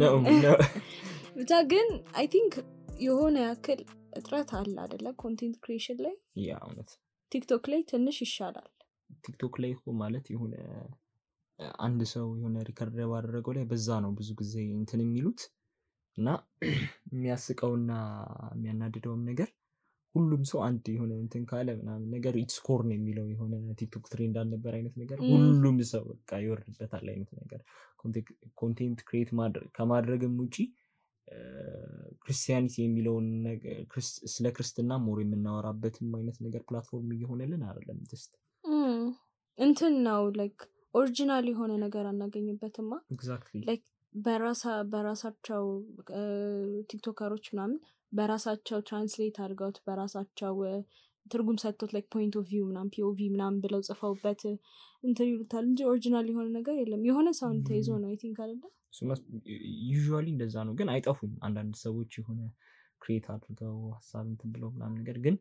ነው ብቻ ግን I think የሆነ ያክል እጥረት አለ አይደለ ኮንቴንት ክሪኤሽን ላይ ያ እውነት ቲክቶክ ላይ ትንሽ ይሻላል ቲክቶክ ላይ ማለት የሆነ አንድ ሰው የሆነ ሪከርድ ባደረገው ላይ በዛ ነው ብዙ ጊዜ እንትን የሚሉት እና የሚያስቀውና የሚያናድደውም ነገር ሁሉም ሰው አንድ የሆነ እንትን ካለ ምናምን ነገር ኢትስ ኮር ነው የሚለው የሆነ ቲክቶክ ትሬንድ አልነበር አይነት ነገር ሁሉም ሰው በቃ ይወርድበታል አይነት ነገር ኮንቴንት ክሬት ከማድረግም ውጪ ክርስቲያኒቲ የሚለውን ነገር ስለ ክርስትና ሞር የምናወራበትም አይነት ነገር ፕላትፎርም እየሆነልን አይደለም just እንትን ነው ላይክ ኦሪጂናል የሆነ ነገር አናገኝበትማ ኤግዛክትሊ ላይክ በራሳቸው ቲክቶከሮች ምናምን በራሳቸው ትራንስሌት አድርገውት በራሳቸው ትርጉም ሰጥቶት ላይክ ፖይንት ኦፍ ቪው ምናምን ፒኦቪ ምናምን ብለው ጽፈውበት እንትን ይሉታል እንጂ ኦሪጂናል የሆነ ነገር የለም የሆነ ሳውንድ ተይዞ ነው አይ ቲንክ አይደለ ዩዥዋሊ እንደዛ ነው ግን አይጠፉም አንዳንድ ሰዎች የሆነ ክሬት አድርገው ሀሳብ እንትን ብለው ምናምን ነገር ግን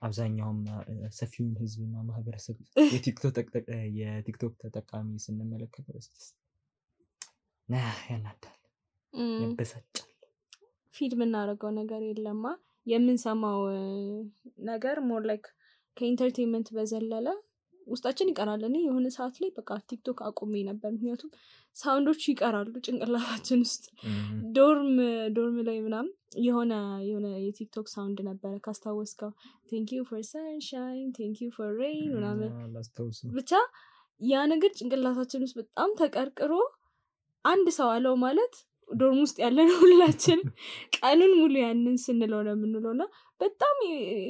አብዛኛውም ሰፊውን ህዝብና ማህበረሰብ የቲክቶክ ተጠቃሚ ስንመለከተው ያናዳል ያበሳጫል ፊድ የምናደርገው ነገር የለማ የምንሰማው ነገር ሞር ላይክ ከኢንተርቴንመንት በዘለለ ውስጣችን ይቀራል እኔ የሆነ ሰዓት ላይ በቃ ቲክቶክ አቁሜ ነበር ምክንያቱም ሳውንዶች ይቀራሉ ጭንቅላታችን ውስጥ ዶርም ላይ ምናምን የሆነ የቲክቶክ ሳውንድ ነበረ ካስታወስከው thank you for sunshine thank you for rain ምናምን ብቻ ያ ነገር ጭንቅላታችን ውስጥ በጣም ተቀርቅሮ አንድ ሰው አለው ማለት ዶርም ውስጥ ያለን ሁላችን ቀኑን ሙሉ ያንን ስንለው ነው የምንለውና በጣም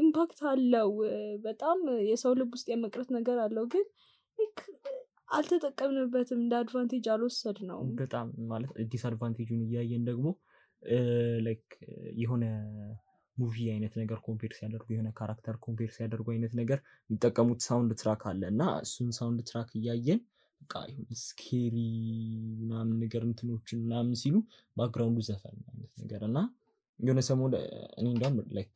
ኢምፓክት አለው በጣም የሰው ልብ ውስጥ የመቅረት ነገር አለው ግን አልተጠቀምንበትም እንደ አድቫንቴጅ አልወሰድ ነው በጣም ማለት ዲስአድቫንቴጁን እያየን ደግሞ ላይክ የሆነ ሙቪ አይነት ነገር ኮምፔር ሲያደርጉ የሆነ ካራክተር ኮምፔር ሲያደርጉ አይነት ነገር የሚጠቀሙት ሳውንድ ትራክ አለ እና እሱን ሳውንድ ትራክ እያየን በቃ ስኬሪ ምናምን ነገር እንትኖችን ምናምን ሲሉ ባክግራውንዱ ዘፈን አይነት ነገር እና የሆነ ሰሞን እኔ እንደውም ላይክ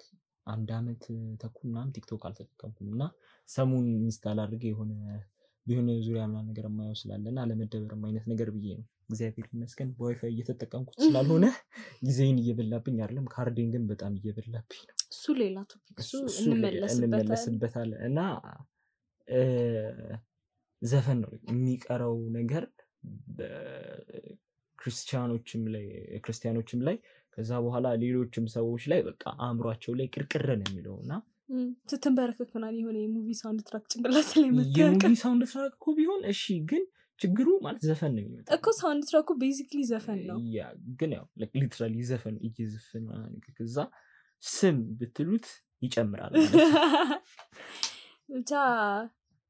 አንድ አመት ተኩል ምናምን ቲክቶክ አልተጠቀምኩም እና ሰሞን ኢንስታል አድርጌ የሆነ ዙሪያ ምናምን ነገር የማየው ስላለና አለመደበርም አይነት ነገር ብዬ ነው እግዚአብሔር ይመስገን በዋይፋይ እየተጠቀምኩት ስላልሆነ ጊዜን እየበላብኝ አይደለም ካርዴን ግን በጣም እየበላብኝ ነው እሱ ሌላ ቶፒክ እሱ እንመለስበታለን እና ዘፈን ነው የሚቀረው ነገር ክርስቲያኖችም ላይ ከዛ በኋላ ሌሎችም ሰዎች ላይ በቃ አእምሯቸው ላይ ቅርቅር ነው የሚለውና ስትንበረከክ ምናምን የሆነ የሙቪ ሳውንድ ትራክ ጭንቅላት ላይ መጥተህ የሙቪ ሳውንድ ትራክ እኮ ቢሆን እሺ ግን ችግሩ ማለት ዘፈን ነው የሚመጣው እኮ ሳውንድ ትራኩ ቤዚክሊ ዘፈን ነው ያ ግን ያው ሊትራሊ ዘፈን እየዘፈን ማለት ከዛ ስም ብትሉት ይጨምራል ብቻ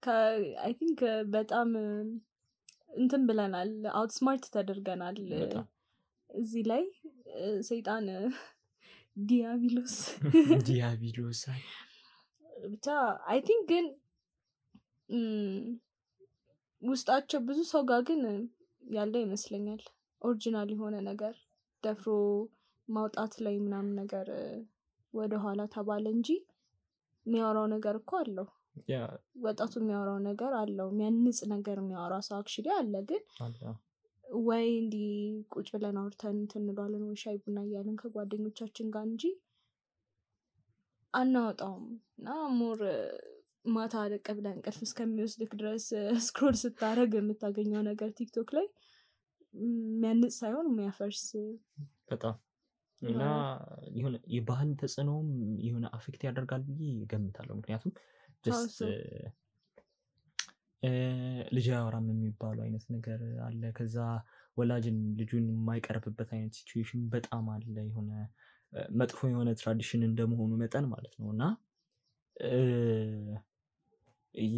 I think በጣም እንትን ብለናል አውትስማርት ተደርገናል እዚህ ላይ ሰይጣን ዲያብሎስ ብቻ I think ግን ውስጣቸው ብዙ ሰው ጋር ግን ያለ ይመስለኛል ኦሪጂናል የሆነ ነገር ደፍሮ ማውጣት ላይ ምናምን ነገር ወደ ኋላ ተባለ እንጂ የሚያወራው ነገር እኮ አለው ወጣቱ የሚያወራው ነገር አለው የሚያንጽ ነገር የሚያወራ ሰው አክቹሊ አለ ግን ወይ እንዲ ቁጭ ብለን አውርተን እንሏለን ወይ ሻይ ቡና እያለን ከጓደኞቻችን ጋር እንጂ አናወጣውም እና ሞር ማታ ደቀ ብለን እንቅልፍ እስከሚወስድክ ድረስ ስክሮል ስታረግ የምታገኘው ነገር ቲክቶክ ላይ የሚያንጽ ሳይሆን የሚያፈርስ በጣም እና የሆነ የባህል ተጽዕኖም የሆነ አፌክት ያደርጋል ብዬ እገምታለሁ ምክንያቱም just ልጅ አወራም የሚባለው አይነት ነገር አለ ከዛ ወላጅን ልጁን የማይቀርብበት አይነት ሲቹዌሽን በጣም አለ የሆነ መጥፎ የሆነ ትራዲሽን እንደመሆኑ መጠን ማለት ነውና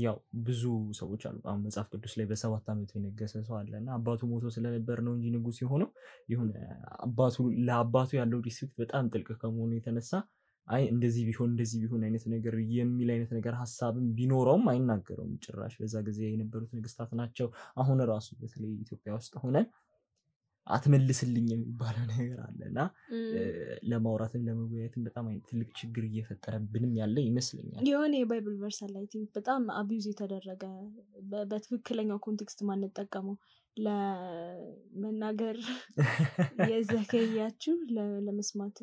ያው ብዙ ሰዎች አሉ አሁን መጽሐፍ ቅዱስ ላይ በ7 አመቱ የነገሰ ሰው አለና አባቱ ሞቶ ስለነበር ነው እንጂ ንጉስ የሆነው ይሁን ለአባቱ ያለው ሪስፔክት በጣም ጥልቅ ከመሆኑ የተነሳ አይ እንደዚህ ቢሆን አይነት ነገር የሚል አይነት ነገር ሐሳብም ቢኖረውም አይናገረውም ጭራሽ በዛ ጊዜ የነበሩት ንግስታት ናቸው አሁን ራሱ በተለይ ኢትዮጵያ ውስጥ ሆነን አትመልስልኝ የሚባለው ነገር አለና ለማውራትም ለመወያየትም በጣም ትልቅ ችግር እየፈጠረብንም ያለ ይመስለኛል የሆነ የባይብል ቨርስ አይ ቲንክ በጣም አቢዩዝ የተደረገ በትክክለኛው ኮንቴክስት ማንጠቀመው ለመናገር የዘገያችሁ ለመስማት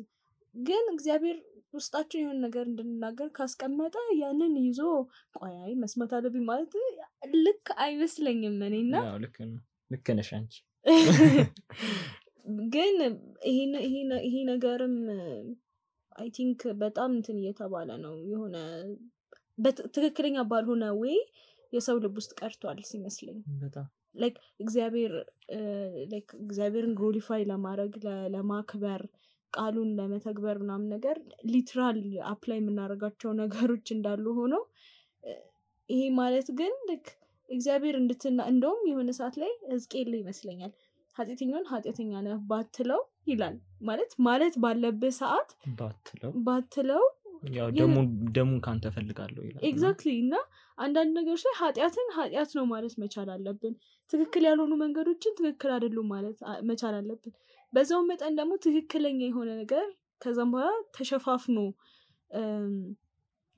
ግን እግዚአብሔር ውስጣችን የሆነ ነገር እንድንናገር ካስቀመጠ ያንን ይዞ ቆይ መስማት አለብኝ ማለት ልክ አይመስለኝም እኔና ያው ልክ ነሽ አንቺ ግን ይሄ ነገርም አይ ቲንክ በጣም እንትን እየተባለ ነው የሆነ ትክክለኛ ባልሆነ ወይ የሰው ልብ ውስጥ ቀርቷል ሲመስለኝ በጣም ላይክ እግዚአብሔርን ግሎሪፋይ ለማድረግ ለማክበር ቃሉን ለመተግበር ምናምን ነገር ሊትራል አፕላይ የምናደርጋቸው ነገሮች እንዳሉ ሆነው ይሄ ማለት ግን እግዚአብሔር እንደውም የሆነ ሰዓት ላይ ሕዝቅኤል ይመስለኛል ኃጢአተኛውን ኃጢአተኛ ነህ ባትለው ይላል ማለት ባለበት ሰዓት ባትለው ያው ደሙን ካንተ ፈልጋለሁ ይላል ኤግዛክትሊ እና አንዳንድ ነገሮች ላይ ኃጢአት ነው ማለት መቻል አለብን ትክክል ያልሆኑ መንገዶችን ትክክል አይደሉም ማለት መቻል አለብን በዛው መጠን ደግሞ ትክክለኛ የሆነ ነገር ከዛም በኋላ ተሸፋፍኖ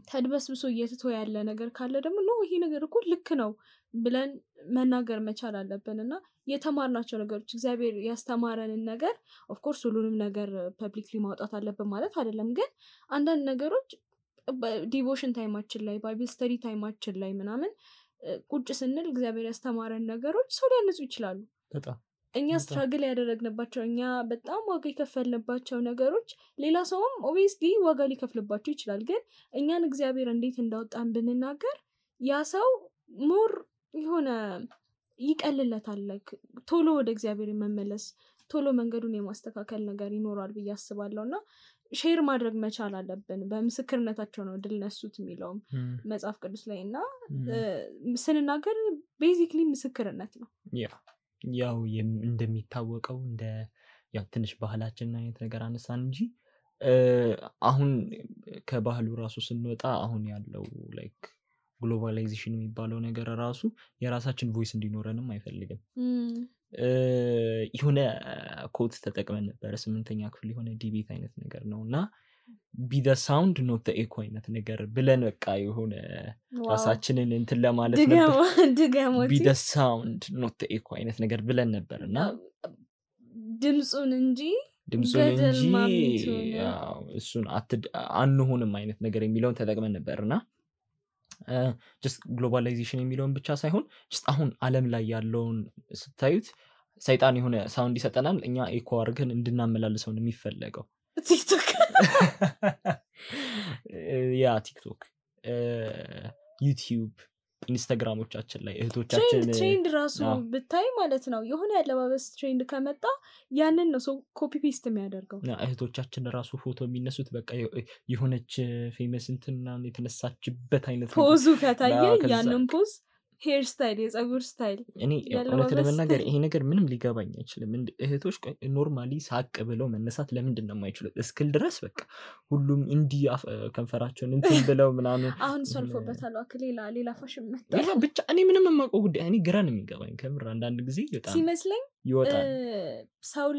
ተድበስብሶ እየተተው ያለ ነገር ካለ ደግሞ ነው ይሄ ነገር እኮ ልክ ነው ብለን መናገር መቻል አለብን እና የተማርናቸው ነገሮች እግዚአብሔር ያስተማረንን ነገር ኦፍ ኮርስ ሁሉንም ነገር ፐብሊክሊ ማውጣት አለብን ማለት አይደለም ግን አንዳንድ ነገሮች ዲቮሽን ታይማችን ላይ ባይብል ስተዲ ታይማችን ላይ ምናምን ቁጭ ስንል እግዚአብሔር ያስተማረን ነገሮች ሰው ሊያነጹ ይችላሉ በጣም እኛ ስትራግል ያደረግንባቸው እኛ በጣም ዋጋ የከፈልንባቸው ነገሮች ሌላ ሰውም ኦብቪየስሊ ዋጋ ሊከፍልባቸው ይችላል ግን እኛን እግዚአብሔር እንዴት እንዳወጣን ብንናገር ያ ሰው ሞር የሆነ ይቀልለታል ቶሎ ወደ እግዚአብሔር መመለስ ቶሎ መንገዱን የማስተካከል ነገር ይኖራል ብዬ አስባለሁ እና ሼር ማድረግ መቻል አለብን በምስክርነታቸው ነው ድል ነሱት የሚለውም መጽሐፍ ቅዱስ ላይ እና ስንናገር ቤዚክሊ ምስክርነት ነው ያው እንደሚታወቀው ያው ትንሽ ባህላችን አይነት ነገር አነሳን እንጂ አሁን ከባህሉ ራሱ ስንወጣ አሁን ያለው ላይክ ግሎባላይዜሽን የሚባለው ነገር ራሱ የራሳችን ቮይስ እንዲኖረንም አይፈልግም የሆነ ኮት ተጠቅመን ነበር 8ኛ ክፍል የሆነ ዲቤት አይነት ነገር ነው እና be the sound not the echo አይነት ነገር ብለን በቃ የሆነ ራሳችንን እንትን ለማለት ነበር be the sound not the echo አይነት ነገር ብለን ነበር እና ድምጹን እንጂ ያው እሱን አንሆንም አይነት ነገር የሚለውን ተጠቅመን ነበርና just globalization የሚለውን ብቻ ሳይሆን just አሁን ዓለም ላይ ያለውን ስታዩት ሰይጣን የሆነ ሳውንድ ይሰጠናል እኛ ኤኮ አድርገን እንድናመላልሰው ነው የሚፈለገው ቲክቶክ ያ ቲክቶክ ዩቲዩብ ኢንስታግራሞቻችን ላይ እህቶቻችን ትሬንድ ራሱ ብታይ ማለት ነው የሆነ ያለባበስ ትሬንድ ከመጣ ያንን ነው ኮፒ ፔስት የሚያደርገው እህቶቻችን ራሱ ፎቶ የሚነሱት በቃ የሆነች ፌመስ እንትና የተነሳችበት አይነት ፖዙ ከታየ ያንን ፖዝ ሄር ስታይል የጸጉር ስታይል እኔ እውነት ለመናገር ይሄ ነገር ምንም ሊገባኝ አይችልም እህቶች ኖርማሊ ሳቅ ብለው መነሳት ለምንድን ነው የማይችሉት እስክል ድረስ በቃ ሁሉም እንዲህ ከንፈራቸውን እንትን ብለው ምናምን አሁን ሰልፎበታል ሌላ ፋሽን መጣ ብቻ እኔ ምንም የማውቀው ጉዳይ እኔ ግራ ነው የሚገባኝ ከምር አንዳንድ ጊዜ በጣም ሲመስለኝ ይወጣል ሰው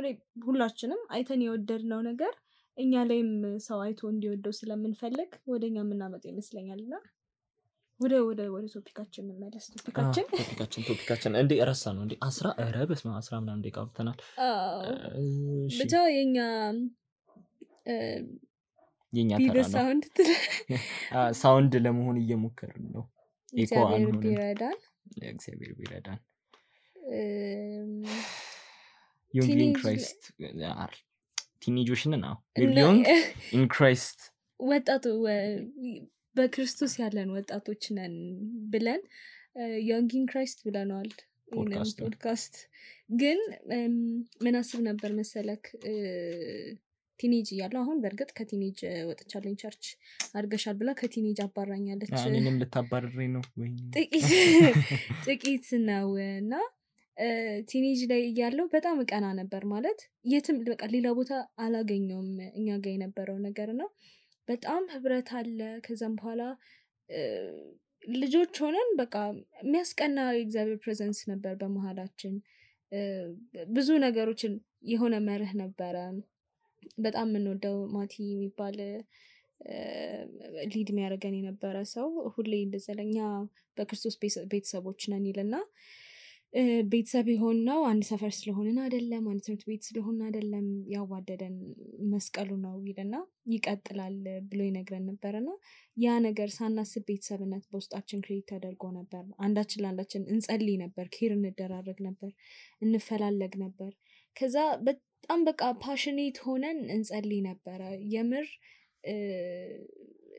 ላይ ሁላችንም አይተን የወደድነው ነገር እኛ ላይም ሰው አይቶ እንዲወደው ስለምንፈልግ ወደኛ የምናመጣው ይመስለኛልና ወደ ቶፒካችን እንመለስ ቶፒካችን እንዴ ረሳ ነው እንዴ 10 ምናምን ደቂቃ አውርተናል ብቻ የኛ ተራ ነው ሳውንድ ለመሆን እየሞከርን ነው እግዚአብሔር ቢረዳን ዮንግ ክራይስት ቲኔጆችን ነው ዮንግ ኢን ክራይስት ወጣቱ በክርስቶስ ያለን ወጣቶች ነን ብለን ዮንግ ኢን ክራይስት ብለናል ፖድካስት ግን ምን አስብ ነበር መሰለክ ቲኔጅ እያለሁ አሁን በእርግጥ ከቲኔጅ ወጥቻለኝ ቸርች አድርገሻል ብላ ከቲኔጅ አባራኛለች እኔንም ልታባርረኝ ነው ወይ ጥቂት ነው እና ቲኔጅ ላይ እያለሁ በጣም እቀና ነበር ማለት የትም በቃ ሌላ ቦታ አላገኘውም እኛ ጋር የነበረው ነገር ነው በጣም ህብረት አለ ከዛም በኋላ ልጆች ሆነን በቃ የሚያስቀና የእግዚአብሔር ፕሬዘንስ ነበር በመሃላችን ብዙ ነገሮችን የሆነ መርህ ነበረ በጣም የምንወደው ማቲ የሚባል ሊድ የሚያደርገን የነበረ ሰው ሁሌ እንደዘለኛ በክርስቶስ ቤተሰቦች ነን ይልና ቤተሰብ የሆነው አንድ ሰፈር ስለሆንን አይደለም፣ አንድ ትምህርት ቤት ስለሆንን አይደለም፣ ያዋደደን መስቀሉ ነው ይልና ይቀጥላል ብሎ ይነግረን ነበርና ያ ነገር ሳናስብ ቤተሰብነት በውስጣችን ክሬት ተደርጎ ነበር። አንዳችን ለአንዳችን እንጸልይ ነበር፣ ኬር እንደራረግ ነበር፣ እንፈላለግ ነበር። ከዛ በጣም በቃ ፓሽኔት ሆነን እንጸልይ ነበረ። የምር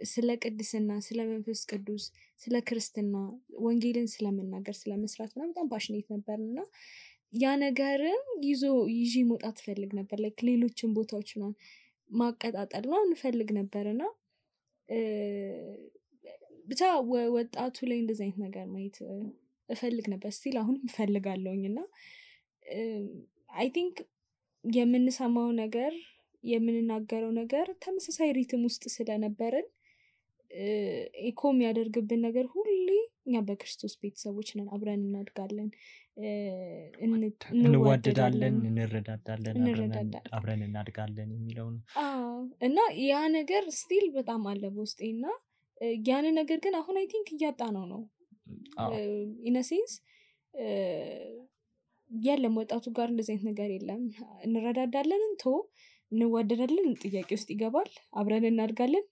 ስለ ቅድስና፣ ስለ መንፈስ ቅዱስ፣ ስለ ክርስትና፣ ወንጌልን ስለመናገር፣ ስለመስራት በጣም ፓሽኔት ነበር እና ያ ነገርን ይዤ መውጣት ፈልግ ነበር። ላይክ ሌሎችን ቦታዎች ማቀጣጠል እንፈልግ ነበር እና ብቻ ወጣቱ ላይ እንደዚህ አይነት ነገር ማየት እፈልግ ነበር። ስቲል አሁንም እፈልጋለሁኝ እና አይ ቲንክ የምንሰማው ነገር የምንናገረው ነገር ተመሳሳይ ሪትም ውስጥ ስለነበርን ኢኮ የሚያደርግብን ነገር ሁሌ እኛ በክርስቶስ ቤተሰቦች ነን፣ አብረን እናድጋለን፣ እንዋደዳለን፣ እንረዳዳለን፣ አብረን እናድጋለን የሚለው ነው እና ያ ነገር ስቲል በጣም አለ በውስጤ እና ያን ነገር ግን አሁን አይ ቲንክ እያጣ ነው ኢነሴንስ የለም። ወጣቱ ጋር እንደዚህ አይነት ነገር የለም። እንረዳዳለን እንዋደዳለን ጥያቄ ውስጥ ይገባል። አብረን እናድጋለን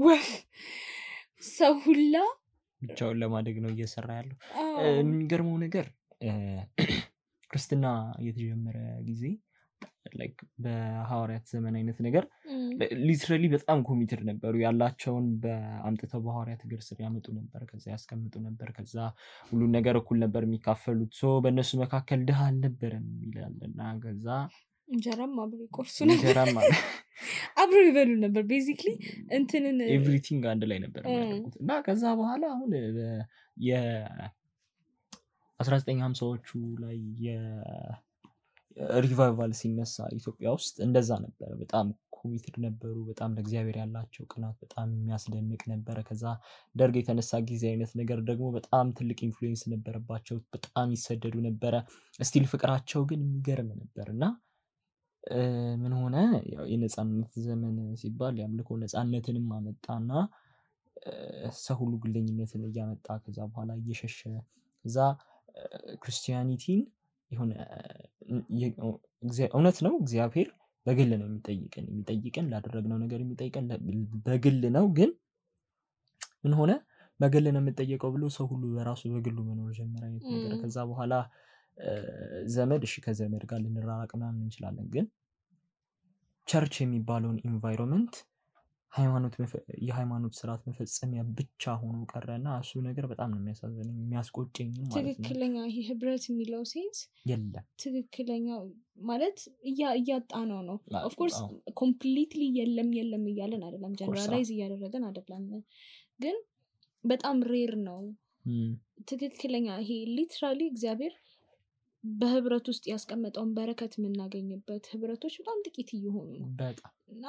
ወፍ ሰው ሁላ ብቻውን ለማደግ ነው እየሰራ ያለው። የሚገርመው ነገር ክርስትና የተጀመረ ጊዜ ላይክ በሐዋርያት ዘመን አይነት ነገር ሊትራሊ በጣም ኮሚትድ ነበሩ። ያላቸውን በአምጥተው በሐዋርያት እግር ስር ያመጡ ነበር፣ ከዛ ያስቀምጡ ነበር፣ ከዛ ሁሉን ነገር እኩል ነበር የሚካፈሉት። ሶ በእነሱ መካከል ድሃ አልነበረም ይላልና ከዛ እንጀራም አብሮ ይቆርሱ ነበር፣ አብሮ ይበሉ ነበር። ቤዚክሊ እንትንን ኤቭሪቲንግ አንድ ላይ ነበር የሚያደርጉት እና ከዛ በኋላ አሁን የ1950ዎቹ ላይ ሪቫይቫል ሲነሳ ኢትዮጵያ ውስጥ እንደዛ ነበረ። በጣም ኮሚትድ ነበሩ። በጣም ለእግዚአብሔር ያላቸው ቅናት በጣም የሚያስደንቅ ነበረ። ከዛ ደርግ የተነሳ ጊዜ አይነት ነገር ደግሞ በጣም ትልቅ ኢንፍሉዌንስ ነበረባቸው። በጣም ይሰደዱ ነበረ። ስቲል ፍቅራቸው ግን የሚገርም ነበር እና ምን ሆነ ያው የነፃነት ዘመን ሲባል ያምልኮ ነፃነትንም አመጣና ሰው ሁሉ ግለኝነትን እያመጣ ከዛ በኋላ እየሸሸ ከዛ ክርስቲያኒቲን የሆነ እውነት ነው እግዚአብሔር በግል ነው የሚጠይቀን ላደረግነው ነገር የሚጠይቀን በግል ነው። ግን ምን ሆነ በግል ነው የምጠየቀው ብሎ ሰው ሁሉ በራሱ በግሉ መኖር ጀመረ አይነት ነገር። ከዛ በኋላ ዘመድ እሺ ከዘመድ ጋር ልንራራቅ ምናምን እንችላለን፣ ግን ቸርች የሚባለውን ኢንቫይሮንመንት የሃይማኖት ስርዓት መፈጸሚያ ብቻ ሆኖ ቀረና እሱ ነገር በጣም ነው የሚያሳዝነኝ የሚያስቆጨኝ ማለት ነው። ትክክለኛ ይሄ ህብረት የሚለው ሴንስ የለም። ትክክለኛ ማለት እያጣ ነው። ኦፍ ኮርስ ኮምፕሊትሊ የለም እያለን አይደለም፣ ጀነራላይዝ እያደረገን አይደለም፣ ግን በጣም ሬር ነው። ትክክለኛ ይሄ ሊትራሊ እግዚአብሔር በህብረት ውስጥ ያስቀመጠውን በረከት የምናገኝበት ህብረቶች በጣም ጥቂት እየሆኑ ነው እና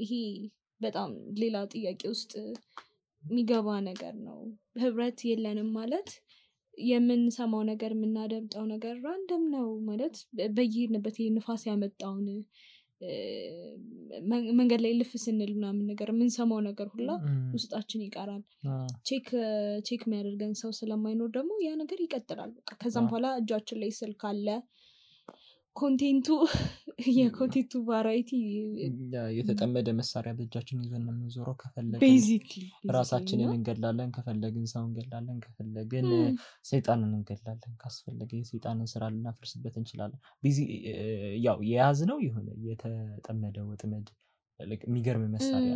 ይሄ በጣም ሌላ ጥያቄ ውስጥ የሚገባ ነገር ነው። ህብረት የለንም ማለት የምንሰማው ነገር የምናደምጠው ነገር ራንደም ነው ማለት በየሄድንበት ንፋስ ያመጣውን መንገድ ላይ ልፍ ስንል ምናምን ነገር የምንሰማው ነገር ሁላ ውስጣችን ይቀራል። ቼክ የሚያደርገን ሰው ስለማይኖር ደግሞ ያ ነገር ይቀጥላል። በቃ ከዛም በኋላ እጃችን ላይ ስልክ አለ፣ የኮንቴንቱ ቫራይቲ የተጠመደ መሳሪያ በእጃችን ይዘን የምንዞረው። ከፈለግን ራሳችንን እንገላለን፣ ከፈለግን ሰው እንገላለን፣ ከፈለግን ሰይጣንን እንገላለን፣ ካስፈለገ የሰይጣንን ስራ ልናፈርስበት እንችላለን። ያው የያዝነው የሆነ የተጠመደ ወጥመድ የሚገርም መሳሪያ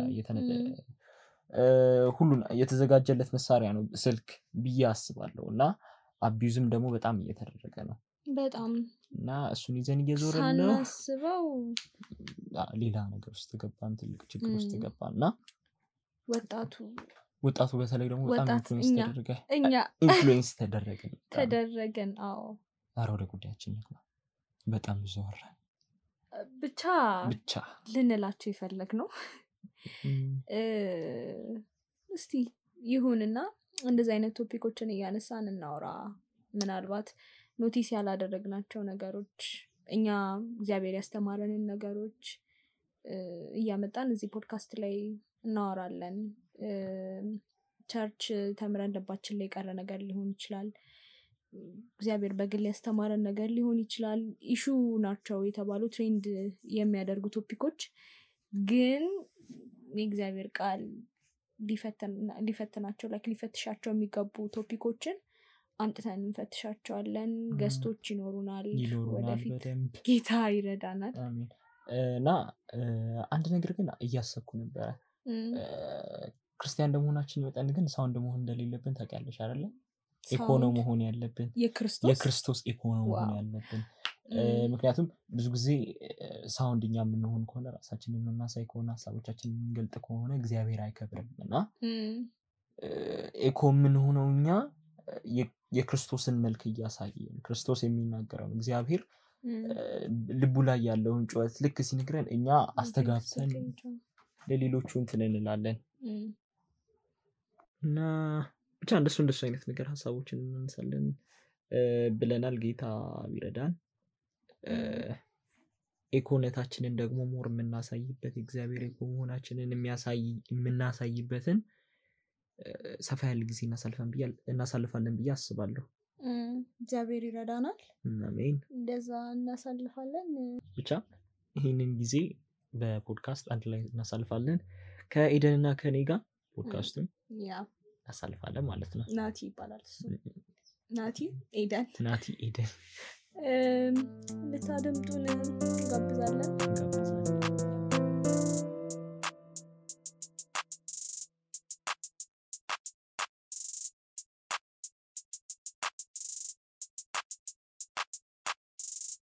ሁሉን የተዘጋጀለት መሳሪያ ነው ስልክ ብዬ አስባለሁ። እና አቢዩዝም ደግሞ በጣም እየተደረገ ነው በጣም እና እሱን ይዘን እየዞርን ነው ሳናስበው ሌላ ነገር ውስጥ ገባን፣ ትልቅ ችግር ውስጥ ገባን እና ወጣቱ በተለይ ደግሞ በጣም ኢንፍሉዌንስ ተደረገን። አዎ ኧረ ወደ ጉዳያችን እንግባ። በጣም ብዙ ወራን ብቻ ልንላቸው የፈለግ ነው። እስቲ ይሁንና እንደዚህ አይነት ቶፒኮችን እያነሳን እናውራ። ምናልባት ኖቲስ ያላደረግናቸው ነገሮች፣ እኛ እግዚአብሔር ያስተማረንን ነገሮች እያመጣን እዚህ ፖድካስት ላይ እናወራለን። ቸርች ተምረን ልባችን ላይ የቀረ ነገር ሊሆን ይችላል። እግዚአብሔር በግል ያስተማረን ነገር ሊሆን ይችላል ኢሹ ናቸው የተባሉ ትሬንድ የሚያደርጉ ቶፒኮች ግን የእግዚአብሔር ቃል ሊፈትናቸው ሊፈትሻቸው የሚገቡ ቶፒኮችን አንጥተን እንፈትሻቸዋለን ገስቶች ይኖሩናል ወደፊት ጌታ ይረዳናል አሜን እና አንድ ነገር ግን እያሰብኩ ነበር ክርስቲያን እንደመሆናችን መጠን ግን ሳውንድ መሆን እንደሌለብን ታውቂያለሽ አይደል ኢኮኖሚ መሆን ያለብን የክርስቶስ ኢኮኖሚ መሆን ያለብን ምክንያቱም ብዙ ጊዜ ሳውንድኛ ምንሆን ከሆነ ራሳችንን እናሳይ ከሆነ ሐሳቦቻችንን እንገልጥ ከሆነ እግዚአብሔር አይከብርምና ኢኮ ምን ሆነውኛ የክርስቶስን መልክ ያሳየን ክርስቶስ የሚናገረው እግዚአብሔር ልቡ ላይ ያለውን ጩኸት ልክ ሲነግረን እኛ አስተጋብተን ለሌሎቹ እንትን እንላለን እና ብቻ እንደሱ አይነት ነገር ሐሳቦችን እናንሳለን ብለናል ጌታ ይረዳን ኢኮነታችንን ደግሞ ሞር የምናሳይበት እግዚአብሔር ኢኮኖማችንን የምናሳይበትን ሰፋ ያለ ጊዜ እናሳልፋለን ብዬ አስባለሁ እግዚአብሔር ይረዳናል አሜን እንደዛ እናሳልፋለን ብቻ ይሄንን ጊዜ በፖድካስት አንድ ላይ እናሳልፋለን ከኤደንና ከኔ ጋር ፖድካስቱን እናሳልፋለን ማለት ነው ናቲ ይባላል እሱ ናቲ ኤደን ልታደምጡን